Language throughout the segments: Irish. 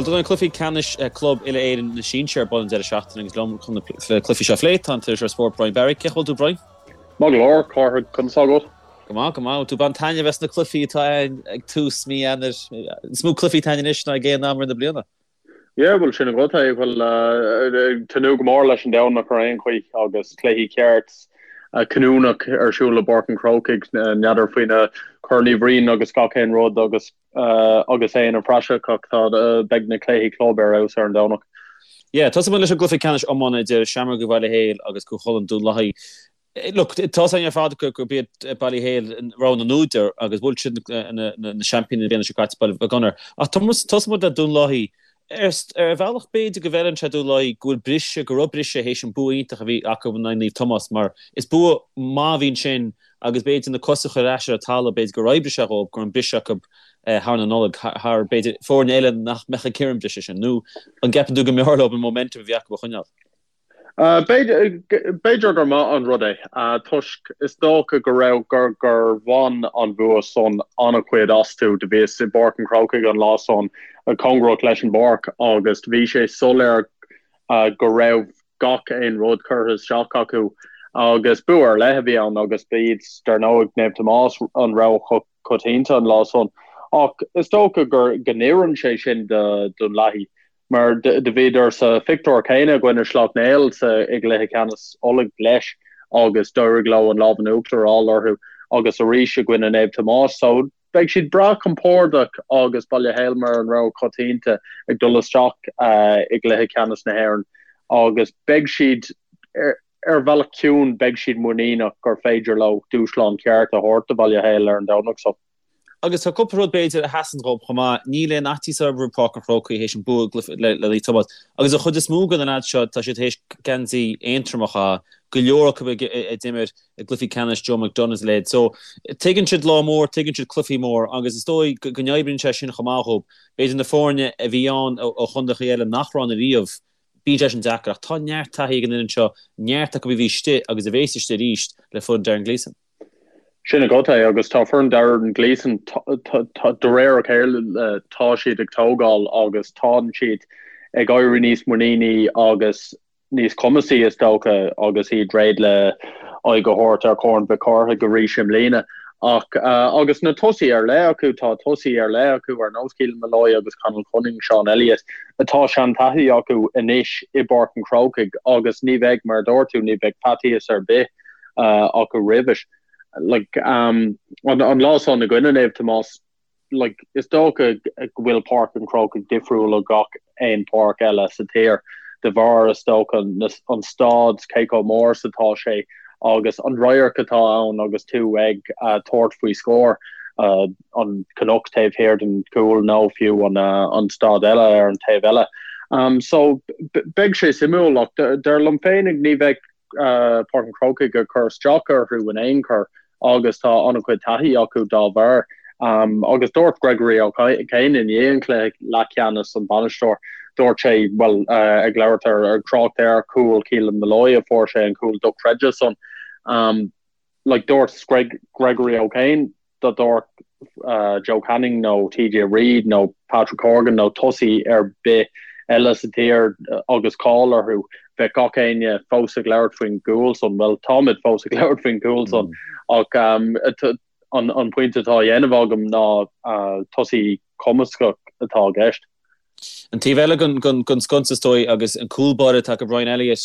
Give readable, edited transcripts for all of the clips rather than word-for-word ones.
Bhuel, tá na cluichí ceannais club Uile-Éireann na Sinsear ar bun an deireadh seachtaine agus liom chun na cluichí seo a phlé tá an t-iriseoir spóirt Brian Barry. Cén chaoi a bhfuil tú, Brian? Maith go leor, Cárthach, conas tá agat? Go maith, go maith. Bhfuil tú ag baint taitneamh as na cluichí atá ann ag tús mí Eanáir? Is mó cluichí atá ann anois ná ag aon am i rith na bliana. Yeah, bhuel sin agat é. Bhuel, ag tnúth go mór leis an Domhnach ar aon chaoi agus cluichí ceart cinniúnach ar siúl i bPáirc an Chrócaigh, n'fheadar faoi na Corn Uí Bhriain agus gach aon rud agus agus é ina phraiseach ach tá, beidh na cluichí club ar fheabhas ar an Domhnach. Yeah, tosóidh muid leis an gcluiche ceannais iomána idir Seamróga Bhaile Héil agus Cú Chulainn Dún Lathaí. Look, tá 's againn ar fad gurb iad Baile Héil rogha na n-údar agus bhuail siad na seaimpíní na bliana seo caite, Baile Mhic Gonair. Ach tosóidh muid le Dún Lathaí. Ar bhealach b'fhéidir go bhfeileann sé Dún Lathaí go bhfuil briseadh, go raibh briseadh théis an bua iontach a bhí acu in aghaidh Naomh Tomás mar is bua maith a bhí ansin agus b'fhéidir na cosa a chur ar ais ar an talamh, b'fhéidir gur oibrigh sé dhóibh go raibh an briseadh acu thar na Nollag, thar b'fhéidir foirne eile nach mbeadh ag iarraidh an briseadh sin. Nó an gceapann tú go mb'fhearr leo an momentum a bhí acu a choinneáil? B'fhéidir gur maith an rud é, toisc is dócha go raibh gur gur bhain an bhua san an-chuid astu. Do bhíos i bPáirc an Chrócaigh an lá san, cóngarach leis an bpáirc, agus do bhí sé soiléir go raibh gach aon rud curtha isteach acu agus bua ar leith a bhí ann agus ba iad, dar ndóigh, Naomh Tomás an rogha choitianta an lá san. Ach is dócha gur go n-oireann sé sin do Dhún Lathaí. Mar do bhíodar sa phictiúr céanna i gcoinne Sleacht Néill sa i gcluiche ceannais Uladh leis agus d'éirigh leo an lámh in uachtar a fháil orthu agus arís i gcoinne Naomh Tomás. So beidh siad breá compordach agus Baile Héil mar an rogha coitianta ag dul isteach i gcluiche ceannais na hÉireann agus beidh siad ar bhealach ciúin beidh siad muiníneach gur féidir leo dúshlán ceart a thabhairt do Bhaile Héil ar an Domhnach so. Agus tá cúpla rud, b'fhéidir, a sheasann dhób chomh maith. Níl aon fhaitíos orthu roimh Pháirc an Chrócaigh théis an bua le Naomh Tomás. Agus an chuid is mó de na leaids seo, tá siad théis geansaí Aontroma a chaitheamh, go leor acu a d'imir i gcluichí ceannais Joe McDonagh is a leithéid. So, tuigeann siad lá mór, tuigeann siad cluichí mór agus is dóigh go n-oibríonn sé sin chomh maith dhób. B'fhéidir na foirne a bhí ann ó chontaetha eile nach raibh ann ariamh, bíonn sé sin deacair. Ach tá neart taithí ag an fhoireann seo, neart acu a bhí istigh agus a bhéas istigh arís le foireann Darren Gleeson. Sin agat é, agus tá foireann Darren Gleeson, de réir a chéile tá siad ag tógáil agus tánn siad ag éirí níos muiníní agus níos cumasaí is dócha agus iad réidh le aghaidh a thabhairt ar Chorn Mhic Cárthaigh arís i mbliana. Ach agus na tosaithe ar leith acu, tá tosaithe ar leith acu ar nós Keelan Molloy agus Conal Cunning, Sean Elliott, atá seantaithí acu anois i bPáirc an Chrócaigh agus ní bheidh, mar a dúirt tú, ní bheidh faitíos ar bith acu roimhis. Like, an lá san i gcoinne Naomh Tomás, like, is dócha go bhfuil Páirc an Chrócaigh difriúil ó gach aon pháirc eile sa tír de bharr, is dócha, an staid, cé chomh mór is atá sé agus an radharc atá ann agus tú ag tabhairt faoi scór, an cnoc taobh thiar den chúl nó fiú an staid eile ar an taobh eile. So, beidh sé suimiúil ach dar liom féinig ní bheidh Páirc an Chrócaigh ag cur isteach orthu in aon chor agus tá an-chuid taithí acu dá bharr. Agus dúirt Gregory O'Kane i ndiaidh an chluiche leathcheannais, an bainisteoir, dúirt sé, bhuel, ag labhairt ar, ag trácht ar chúl Keelan Molloy a fuair sé an cúl dochreidte san, like dúirt Greg, Gregory O'Kane, dá dtabharfadh Joe Canning nó TJ Reid nó Patrick Horgan nó tosaí ar bith eile sa tír agus cáil orthu, bheadh gach éinne fós ag labhairt faoin gcúl san. Bhuel, táimid fós ag labhairt faoin gcúl san ach an pointe atá á dhéanamh agam ná tosaí cumasach atá i gceist. An taobh eile den sconsa is dóigh agus an cúl báire atá acu Brian Elliott,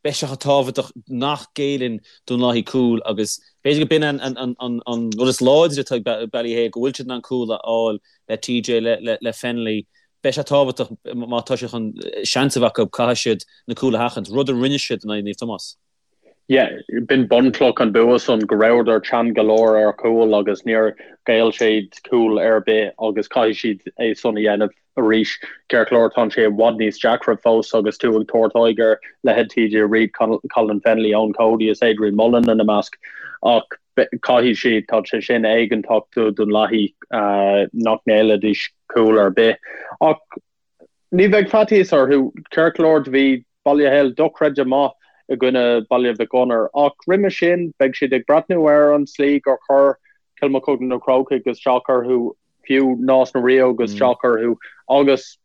beidh sé chomh tábhachtach nach gcéilleann Dún Lathaí cúl agus b'fhéidir go b'in an rud is láidre atá ag Ballyhale, go bhfuil siad in ann cúl a fháil le TJ, le Fennelly. Beidh sé tábhachtach má tá siad chun seans a bheith acu, caithfidh siad na cúil a sheachaint, rud a rinne siad in aghaidh Naomh Tomás. Yeah, b'in bunchloch an bua san, go rabhadar teann go leor ar chúl agus níor ghéill siad cúl ar bith agus caithfidh siad é san a dhéanamh arís. Ceart go leor, tá sé i bhfad níos deacra fós agus tú ag tabhairt aghaidh ar leithéid TJ Reid, Colin Fennelly, Eoin Cody is Adrian Mullen ina measc ach caithfidh siad, tá sé sin éigeantach do Dhún Lathaí nach ngéillfidís cúl ar bith. Ach Ní bheidh faitíos orthu, ceart go leor do bhí Baile Héil dochreidte maith i gcoinne Baile Mhic Gonair ach roimhe sin beidh siad ag breathnú ar an tslí gur chuir Cill Mochuda Na Crócaigh isteach orthu, fiú Nás na Ríogh isteach orthu agus.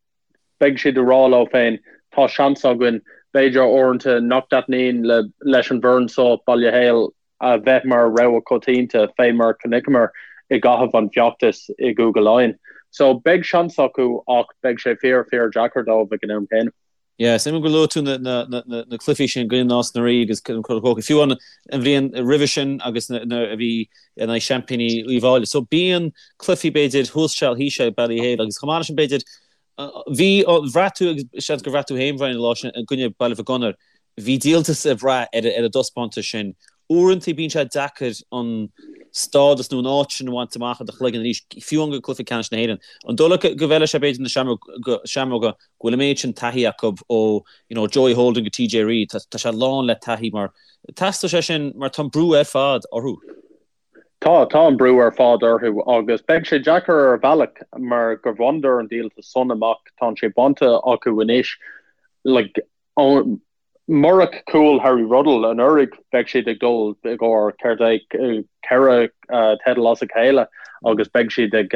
Beidh siad ag rá leo féin, tá seans againn, b'fhéidir uaireanta nach dtaitníonn leis an bhfoireann seo, Baile Héil, a bheith mar rogha coitianta fé mar a chonaiceamar i gcaitheamh an feachtais i gCúige Laighean. So beidh seans acu ach beidh sé fíor fíor deacair dóibh ag an am céanna. Yeah, is suimiúil gur luaigh tú na cluichí sin i gcoinne Nás na Rí agus an Chrócaigh, fiú an bhliain roimhe sin agus nuair a bhí in aghaidh seaimpíní Uíbh Fhailí. So bíonn cluichí b'fhéidir thuas seal thíos seal ag Ballyhale agus chomh maith leis sin b'fhéidir Bhí, bhraith tú, agus seans gur bhraith tú féin, Brian, an lá sin i gcoinne Baile Mhic Gonair, bhí díoltas le brath ar an dtaispeántas sin. Uaireanta bíonn sé deacair an stádas nó an áit sin a bhaint amach i do chloigeann arís, fiú amháin go cluiche ceannais na hÉireann. An dóigh leat go bhfeilfidh sé b'fhéidir na Seamróga go bhfuil an méid sin taithí acu ó you know Joey Holden go TJ Reid, tá sé lán le taithí mar teastóidh sé sin mar tá an brú ar fad orthu. Tá, tá an brú ar fad orthu agus beidh sé deacair ar bhealach mar gur bhaineadar an díoltas san amach, tá sé bainte acu anois. Like, murach cúl Harry Ruddle anuraidh bheadh siad ag dul i gcomhair céard é, 4 teideal as a chéile agus beidh siad ag,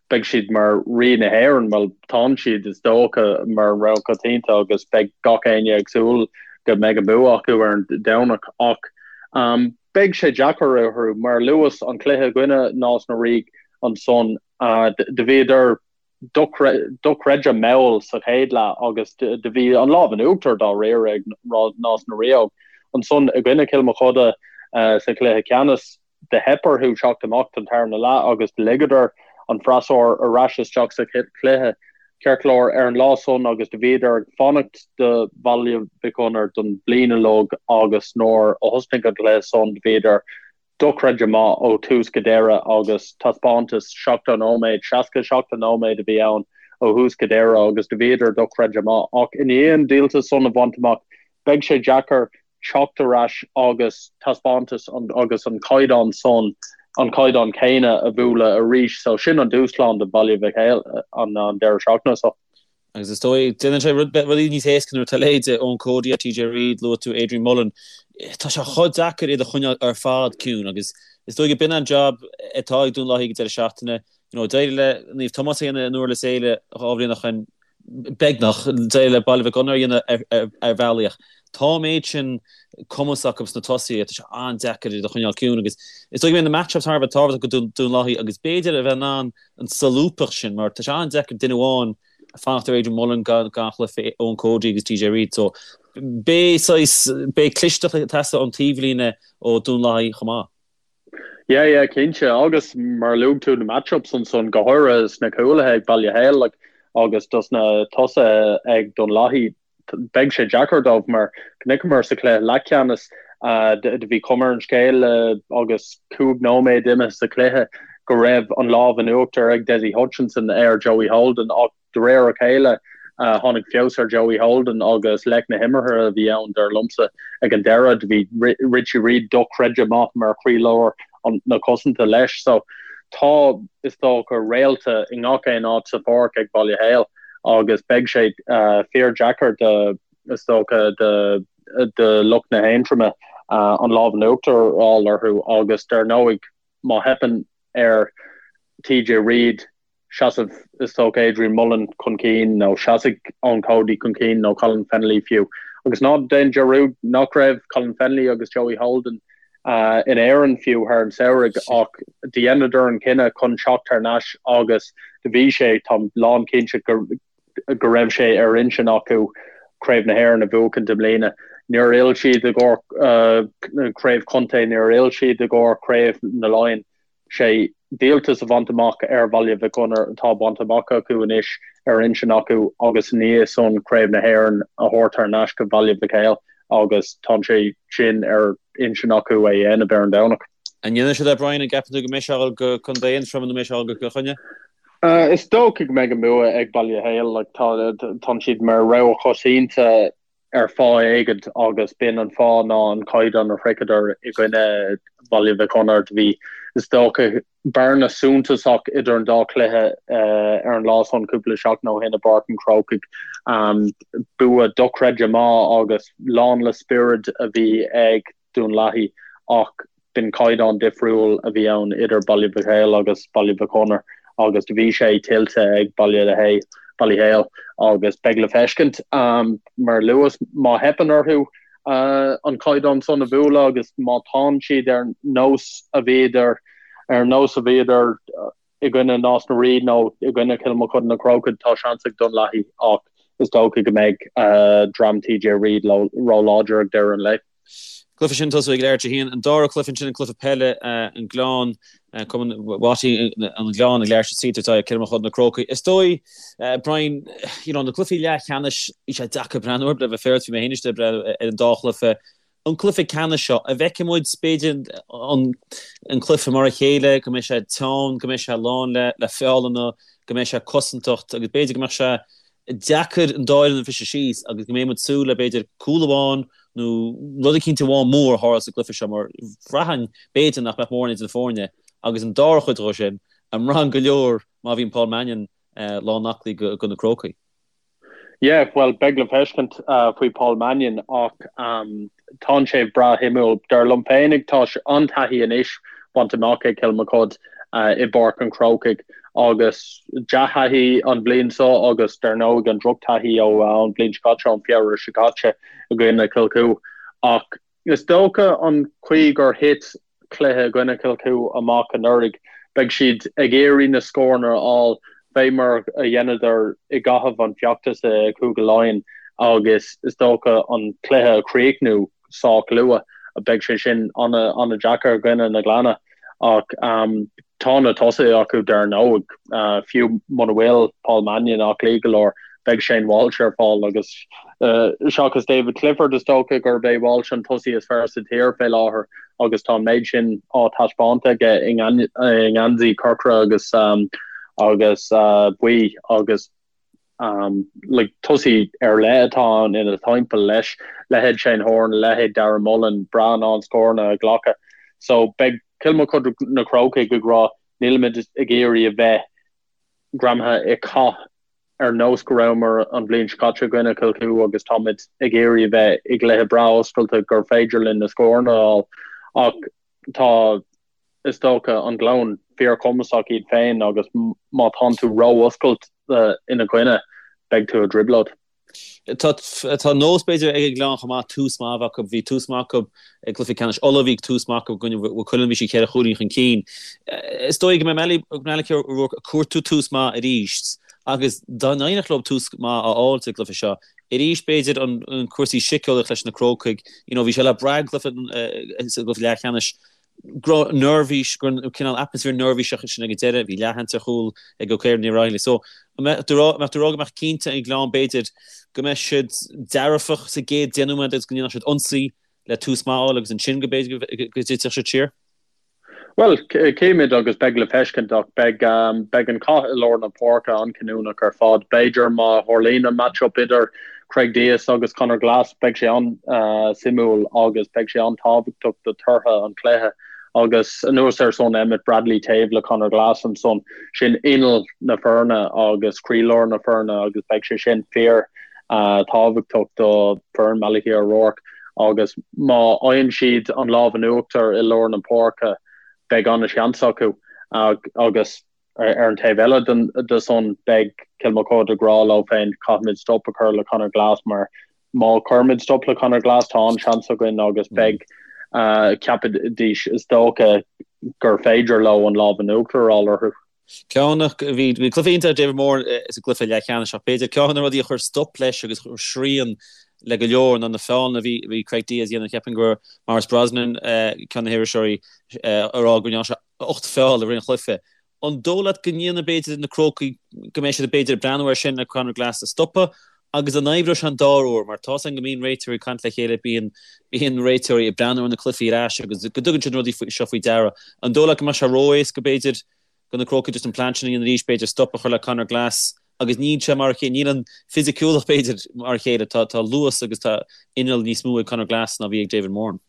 beidh siad mar Rí na hÉireann, bhuel tánn siad is dócha mar an rogha coitianta agus beidh gach éinne ag súil go mbeidh an bua acu ar an Domhnach ach Beidh sé deacair orthu, mar a luas, an cluiche i gcoinne Nás na Ríogh ansan. Do bhíodar dochreidte mall sa chéad leath agus do bhí an lámh in uachtar dáiríre ag Nás na Ríogh. Ansan i gcoinne Cill Mochuda sa chluiche ceannais, do theip orthu teacht amach don tarna leath agus do ligeadar an freasúr ar ais isteach sa chluiche. Ceart go leor, ar an lá san agus do bhíodar ag fanacht do Bhaile Mhic Gonair don bhliain uilig agus nuair a thosnaigh an cluiche san do bhíodar dochreidte maith ó thús go deireadh agus taispeántas 70 nóiméad, 67 nóiméad a bhí ann ó thús go deireadh agus do bhíodar dochreidte maith. Ach i ndiaidh an díoltas san a bhaint amach beidh sé deacair teacht ar ais agus taispeántas agus an caighdeán san, an caighdeán céanna a bhualadh arís. So sin an dúshlán do Bhaile Mhic Héil an deireadh seachtaine seo. Agus is dóigh, déanann sé rudaí níos éasca nuair atá leithéide Eoin Cody, TJ Reid, luaigh tú Adrian Mullen, tá sé chomh deacair iad a choinneáil ar fad ciúin agus is dóigh go b'in an job atá ag Dún Lathaí ag an deireadh seachtaine. You know, d'éirigh le Naomh Tomás a dhéanamh in Durlas Éile 2 bhliain ó shin, beagnach, d'éirigh le Baile Mhic Gonair a dhéanamh ar bhealaí ach tá an méid sin cumas acu sna tosaithe, tá sé an-deacair iad a choinneáil ciúin agus is dóigh go mbeidh na match-ups thar a bheith tábhachtach do Dún Lathaí agus b'fhéidir a bheith in ann an solúbthacht sin mar tá sé an-deacair duine amháin fanacht ar Adrian Mullen gan chluiche Eoin Cody agus TJ Reid so beidh saghas, beidh clisteacht ag teastáil ón taobhlíne ó Dún Lathaí chomh maith. Yeah, yeah, cinnte. Agus mar a luaigh tú na match-ups ansan, go háirithe sna cúlaithe ag Baile Héil like, agus dos na tosaithe ag Dún Lathaí, beidh sé deacair dóibh mar chonaiceamar sa chluiche leathcheannais do bhí cuma ar an scéal agus 5 nóiméad imithe sa chluiche go raibh an lámh in uachtar ag Dessie Hutchinson ar Joey Holden ach De réir a chéile, tháinig feabhas ar Joey Holden agus leic na himeartha a bhí ann, dar liomsa. Ag an deireadh, do bhí Richie Reid dochreidte maith mar chroílár na cosanta leis. So, tá, is dócha, réalta i ngach aon áit sa pháirc ag Baile Héil agus beidh sé fíor-deacair do, is dócha, do do lucht na hAontroma an lámh in uachtar a fháil orthu agus, dar ndóigh, má theipeann ar TJ Reid, seasamh is dócha Adrian Mullen chun cinn nó seasfaidh Eoin Cody chun cinn nó Colin Fennelly fiú. Agus ná déan dearúd nach raibh Colin Fennelly agus Joey Holden in Éirinn fiú thar an samhradh ach do dheineadar an cinneadh chun teacht thar n-ais agus do bhí sé, táim lán cinnte go go raibh sé ar intinn acu Craobh na hÉireann a bhuachaint i mbliana. Níor fhill siad i gcomhair Craobh Chontae, níor fhill siad i gcomhair Craobh na Laighean. sé díoltas a bhaint amach ar Bhaile Mhic Gonair atá bainte amach acu anois ar intinn acu agus ina dhiaidh san Craobh na hÉireann a thabhairt thar n-ais go Baile Mhic Héil agus tá sé sin ar intinn acu é a dhéanamh ar an Domhnach. An ndéanfaidh siad é Brian, an gceapann tú go mbeidh sé ag dul go Contae Aontroma nó mbeidh sé ag dul go Cill Chainnigh? Is dócha go mbeidh an bua ag Baile Héil, tá siad mar rogha choitianta ar fáth éigint agus b'in an fáth ná an caighdeán a shroicheadar i gcoinne Bhaile Mhic Gonair. Do bhí, is dócha, bearna suntasach idir an dá chluiche ar an lá san cúpla seachtain ó shin i bPáirc an Chrócaigh. Bua dochreidte maith agus lán le spiorad a bhí ag Dún Lathaí ach b'in caighdeán difriúil a bhí ann idir Baile Mhic Héil agus Baile Mhic Gonair agus do bhí sé tuillte ag Baile Héil. Ballyhale agus beidh le feiscint, mar a luas, má theipeann orthu an caighdeán san a bhualadh agus má tánn siad ar nós a bhíodar ar nós a bhíodar i gcoinne Nás na Rí nó i gcoinne Chill Mochuda na Crócaigh, tá seans ag Dún Lathaí ach is dócha go mbeidh dream TJ Reid ró-láidir ag deireadh an lae. Cluiche sin tosú ag leathuair tar éis a haon. An dara cluiche ansin an cluiche peile, an Gleann, Cumann Watty an Ghleann ag leathuair tar éis a 3 tabhairt aghaidh ar Cill Mochuda na Crócaigh. Is dóigh, Brian, you know, na cluichí leathcheannais, bhí sé deacair breathnú orthu le bheith féaráilte, bhí mé féin istigh ag breathnú ar an dá chluiche. An cluiche ceannais seo, an bhfeicfidh muid, b'fhéidir, an cluiche mar a chéile, go mbeidh sé teann, go mbeidh sé lán le feallanna, go mbeidh sé cosantacht agus b'fhéidir go mbeadh sé deacair an dá fhoireann a bhriseadh síos agus go mbeidh muid ag súil le b'fhéidir cúl amháin nó rud eicínt amháin mór a tharla sa gcluiche seo mar bhraithfinn b'fhéidir nach mbeadh mórán idir na foirne agus an dara chuid dhó sin, an mbraitheann go leor má bhíonn Paul Mannion lán aclaí do na Crócaigh. Yeah, bhuel, beidh le feiscint faoi Paul Mannion ach tánn sé breá shuimiúil. Dar liom féinig, tá an-taithí anois bainte amach ag Cill Mochuda i bPáirc an Chrócaigh agus dea-thaithí an bhliain seo agus dar ndóigh an drochtaithí ó an bhliain seo caite, ón Feabhra seo caite i gcoinne Chill Chua. Ach is dócha an chaoi gur thit cluiche i gcoinne Chill Chua amach anuraidh, beidh siad ag iarraidh na scóranna a fháil fé mar a dheineadar i gcaitheamh an feachtas i Cúige Laighean agus is dócha an cluiche a chríochnú sách luath. Beidh sé sin an-deacair i gcoinne na Gleanna ach tá na tosaithe acu dar ndóigh. Fiú muna bhfuil Paul Mannion aclaí go leor, beidh Shane Walsh ar fáil agus seachas David Clifford is dócha gurb é Walsh an tosaí is fearr sa tír fé láthair agus tá an méid sin á taispeáint aige i ngeansaí corcra agus agus buí agus like tosaí ar leith atá ann ina thimpeall leis, leithéid Shane Horan, leithéid Darragh Mullen, breá in ann scóranna a ghlacadh. So beidh Cill Mochuda na Crócaigh ag rá nílimid ag iarraidh a bheith greamaithe i gcath ar nós go rabhamar an bhliain seo caite i gcoinne Chill Chua agus táimid ag iarraidh a bheith i gcluiche breá oscailte gur féidir linn na scóranna a fháil ach tá is dócha an Gleann fíorchumasach iad féin agus má tánn tú ró-oscailte ina gcoinne beidh tú i dtrioblóid. Tá tá nós b'fhéidir ag an Ghleann chomh maith tús maith a bheith acu. Bhí tús maith acu i gcluiche ceannais Uladh, bhí tús maith acu i gcoinne Mhaigh Cuilinn, bhí siad cheithre chúilín chun cinn. Is dóigh go mbeidh Malachy O'Rourke ag cuartú tús maith arís agus dá n-éireodh leo tús maith a fháil sa gcluiche seo arís b'fhéidir an cúrsaí síceolaíoch leis na Crócaigh, you know bhí sé le brath sa gcluiche leathcheannais go raibh neirbhís, go raibh cineál atmaisféar neirbhíseach sin ag an deireadh, bhí leathsheans ar chúl ag Ó Caoraí Ní Raghallaigh. So, an mbeadh tú ag rá go mbeadh cinnte an Gleann b'fhéidir go mbeadh siad dearfach sa gcéad 10 nóiméad agus go ndéanfadh siad ionsaí le tús maith a fháil agus ansin go b'fhéidir go dtitfeadh siad siar? Bhuel, cífimid agus beidh le feiscint ach beidh beidh an cath i lár na páirce an-chinniúnach ar fad. B'fhéidir má tharlaíonn an match-up idir Craig Dias agus Conor Glass, beidh sé an-suimiúil agus beidh sé an-tábhachtach do tortha an chluiche. Agus anuas air san, Emmet Bradley taobh le Conor Glass ansan, sin inneall na foirne agus croílár na foirne agus beidh sé sin fíor tábhachtach do foireann Malachy O'Rourke agus má fhaigheann siad an lámh in uachtar i lár na páirce, beidh an-seans acu agus. Ar an taobh eile de san, beidh Cill Mochuda ag rá leo féin, caithfimid stop a chur le Conor Glass mar má chuirimid stop le Conor Glass tá an-seans againn agus beidh, ceapfaidís is dócha, gur féidir leo an lámh in uachtar a fháil orthu. Ceann, bhí cluiche iontach ag David Moran sa gcluiche leathcheannais ach b'fhéidir ceann de na rudaí a chuir stop leis agus chuir srian le go leor ná na feallanna a bhí Craig Dias a dhéanamh. Cheapfainn go raibh Maurice Brosnan, ceann de na hiriseoirí, ag rá go ndearna sé 8 feall i rith an chluiche. An dóigh leat go ndéanfaidh b'fhéidir na Crócaigh, go mbeidh siad b'fhéidir ag breathnú air sin le Conor Glass a stopadh agus an oibreoidh sé an dara huair mar tá's againn go mbíonn réiteoirí ag caint le chéile, bíonn bíonn réiteoirí ag breathnú ar na cluichí ar ais agus go dtugann siad na rudaí seo faoi deara. An dóigh leat go mbeadh sé ró-éasca b'fhéidir do na Crócaigh just an plean sin a dhéanamh arís, b'fhéidir stop a chur le Conor Glass agus níl sé mar a chéile, níl an fisiciúlacht b'fhéidir mar a chéile, tá tá luas agus tá inneall níos mó ag Conor Glass ná bhí ag David Moran.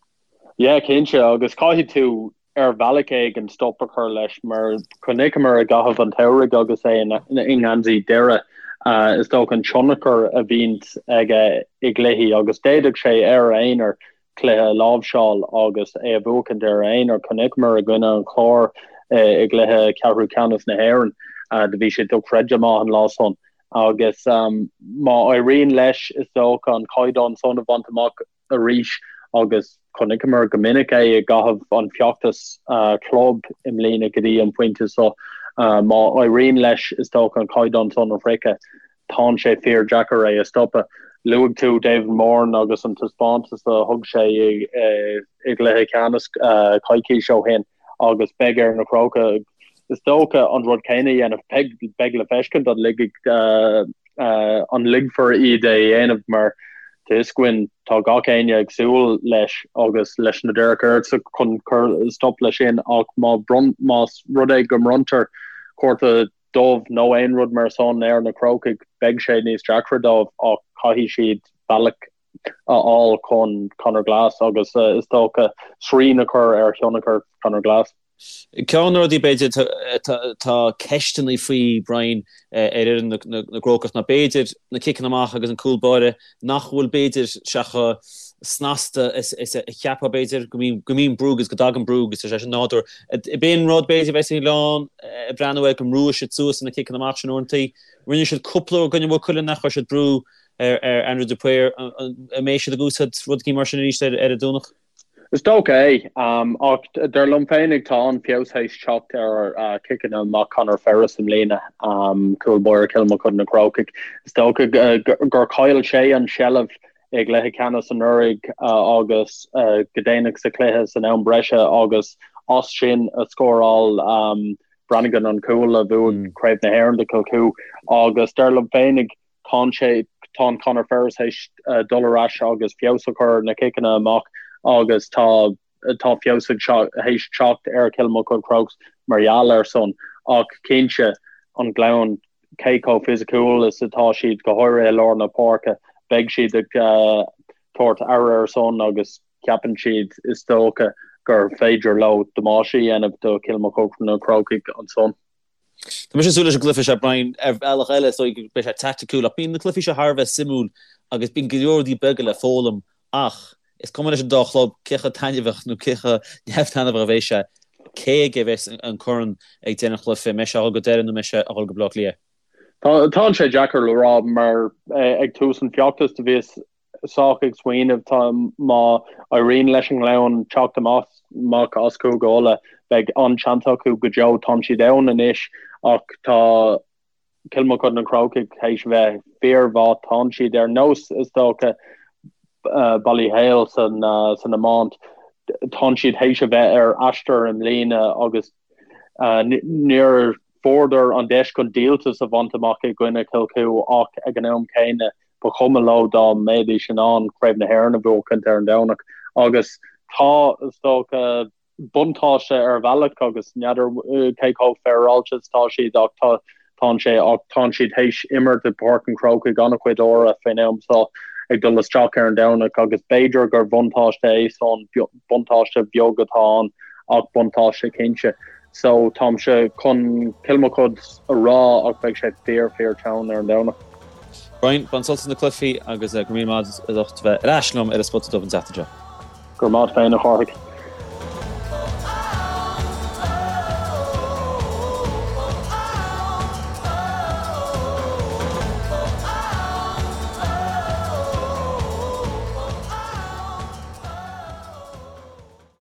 Yeah, cinnte, agus caithfidh tú ar bhealach éigin stop a chur leis mar chonaiceamar i gcaitheamh an tsamhraidh agus é i ngeansaí Doire, is dócha an tionchar a bhíonns aige i gcluichí agus d'fhéadfadh sé ar a aonar cluiche a láimhseáil agus é a bhuachaint ar a aonar. Chonaiceamar i gcoinne an Chláir i gcluiche ceathrú ceannais na hÉireann, do bhí sé dochreidte maith an lá san. Agus má éiríonn leis, is dócha, an caighdeán san a bhaint amach arís, agus chonaiceamar go minic é i gcaitheamh an feachtas club i mbliana go dtí an pointe seo, má éiríonn leis, is dócha, an caighdeán san a shroicheadh, tánn sé fíor deacair é a stopadh. Luaigh tú David Moran agus an taispeántas a thug sé i gcluiche ceannais coicís ó shin agus beidh ar na Crócaigh, is dócha, an rud céanna a dhéanamh. Beidh le feiscint an ligfidh an ligfear iad é a dhéanamh mar tá fhios againn tá gach éinne ag súil leis agus leis na Derek Earls chun cur stop leis sin ach má más rud é go mbronntar cárta dubh nó aon rud mar san ar na Crócaigh, beidh sé níos deacra dóibh ach caithfidh siad bealach a fháil chun Conor Glass agus is dócha srian a chur ar thionchar Conor Glass. Ceann de na rudaí b'fhéidir atá ceisteanna faoi, Brian, ar fhoireann na gCrócach ná b'fhéidir na ciceanna amach agus an cúl báire nach bhfuil b'fhéidir sé chomh snasta is a cheapfá b'fhéidir, go mbíonn brú agus go dtagann brú agus tá sé sin nádúrtha. B'in rud b'fhéidir a bheas an Gleann ag breathnú air go mbrúfaidh siad suas na ciceanna amach sin uaireanta. Rinne siad cúpla uair i gcoinne Mhaigh Cuilinn nach chuir siad brú ar Andrew de Paor. An mbeidh siad ag úsáid rud éigin mar sin arís ar an Domhnach? Is dócha é, ach dar liom féinig tá an-fheabhas théis teacht ar chiceanna amach Conor Ferris i mbliana, cúl báire Chill Mochuda na Crócaigh. Is dócha gur chaill sé an tseilbh i gcluiche ceannais anuraidh agus go déanach sa chluiche san am breise agus as sin a scóráil Brannigan an cúl a bhuaigh Craobh na hÉireann do Chill Chua agus dar liom féinig Tánn sé, tánn Conor Ferris théis dul ar ais agus feabhas a chur ar na ciceanna amach agus tá, tá feabhas ag, théis teacht ar Chill Mochuda Crokes mar gheall air san. Ach cinnte, an Gleann, cé chomh fisiciúil is atá siad, go háirithe i lár na páirce, beidh siad ag tabhairt aire air san agus ceapann siad, is dócha, gur féidir leo damáiste a dhéanamh do Chill Mochuda na Crócaigh ansan. Tá mise ag súil leis an gcluiche seo, Brian, ar bhealach eile, is dóigh go mbeidh sé taiticiúil, ach bíonn na cluichí seo thar a bheith suimiúil agus bíonn go leor rudaí beaga le foghlaim ach is cuma leis an dá chlub cé chomh taitneamhach nó cé chomh neamh-taitneamhach a bheidh sé, cé aige a bheas an corn ag deireadh an chluiche, an mbeidh sé ag dul go Doire nó an mbeidh sé ag dul go Baile Átha Cliath? Tá sé deacair le rá mar ag tús an feachtais do bhíos sách ag smaoineamh tá má éiríonn leis an nGleann teacht amach as Cúige Uladh, beidh an-seans acu go deo. Tánn siad ann anois ach tá Cill Mochuda na Crócaigh théis bheith fíormhaith. Tánn siad ar nós, is dócha, Ballyhale san iomáint. Tánn siad théis a bheith ar aistear i mbliana agus níor fuaireadar an deis chun díoltas a bhaint amach i gcoinne Chill Chua ach ag an am céanna Ba chuma leo dá mbeidís in ann Craobh na hÉireann a bhuachaint ar an Domhnach agus tá, is dócha, buntáiste ar bhealach agus n'fheadar cé chomh féaráilte is atá siad ach tá, tánn sé, ach tánn siad théis imirt i bPáirc an Chrócaigh an-chuid uaire faoin am seo ag dul isteach ar an Domhnach agus b'fhéidir gur bhuntáiste é san, buntáiste bheag atá ann ach buntáiste cinnte. So táimse chun Cill Mochuda a rá ach beidh sé fíor fíor teann ar an Domhnach. Brian, bain sult as na cluichí agus go raibh míle maith agat as ucht bheith ar ais liom ar an Spota Dubh an tseachtain seo. Go raibh maith agat féin a Chárthaigh.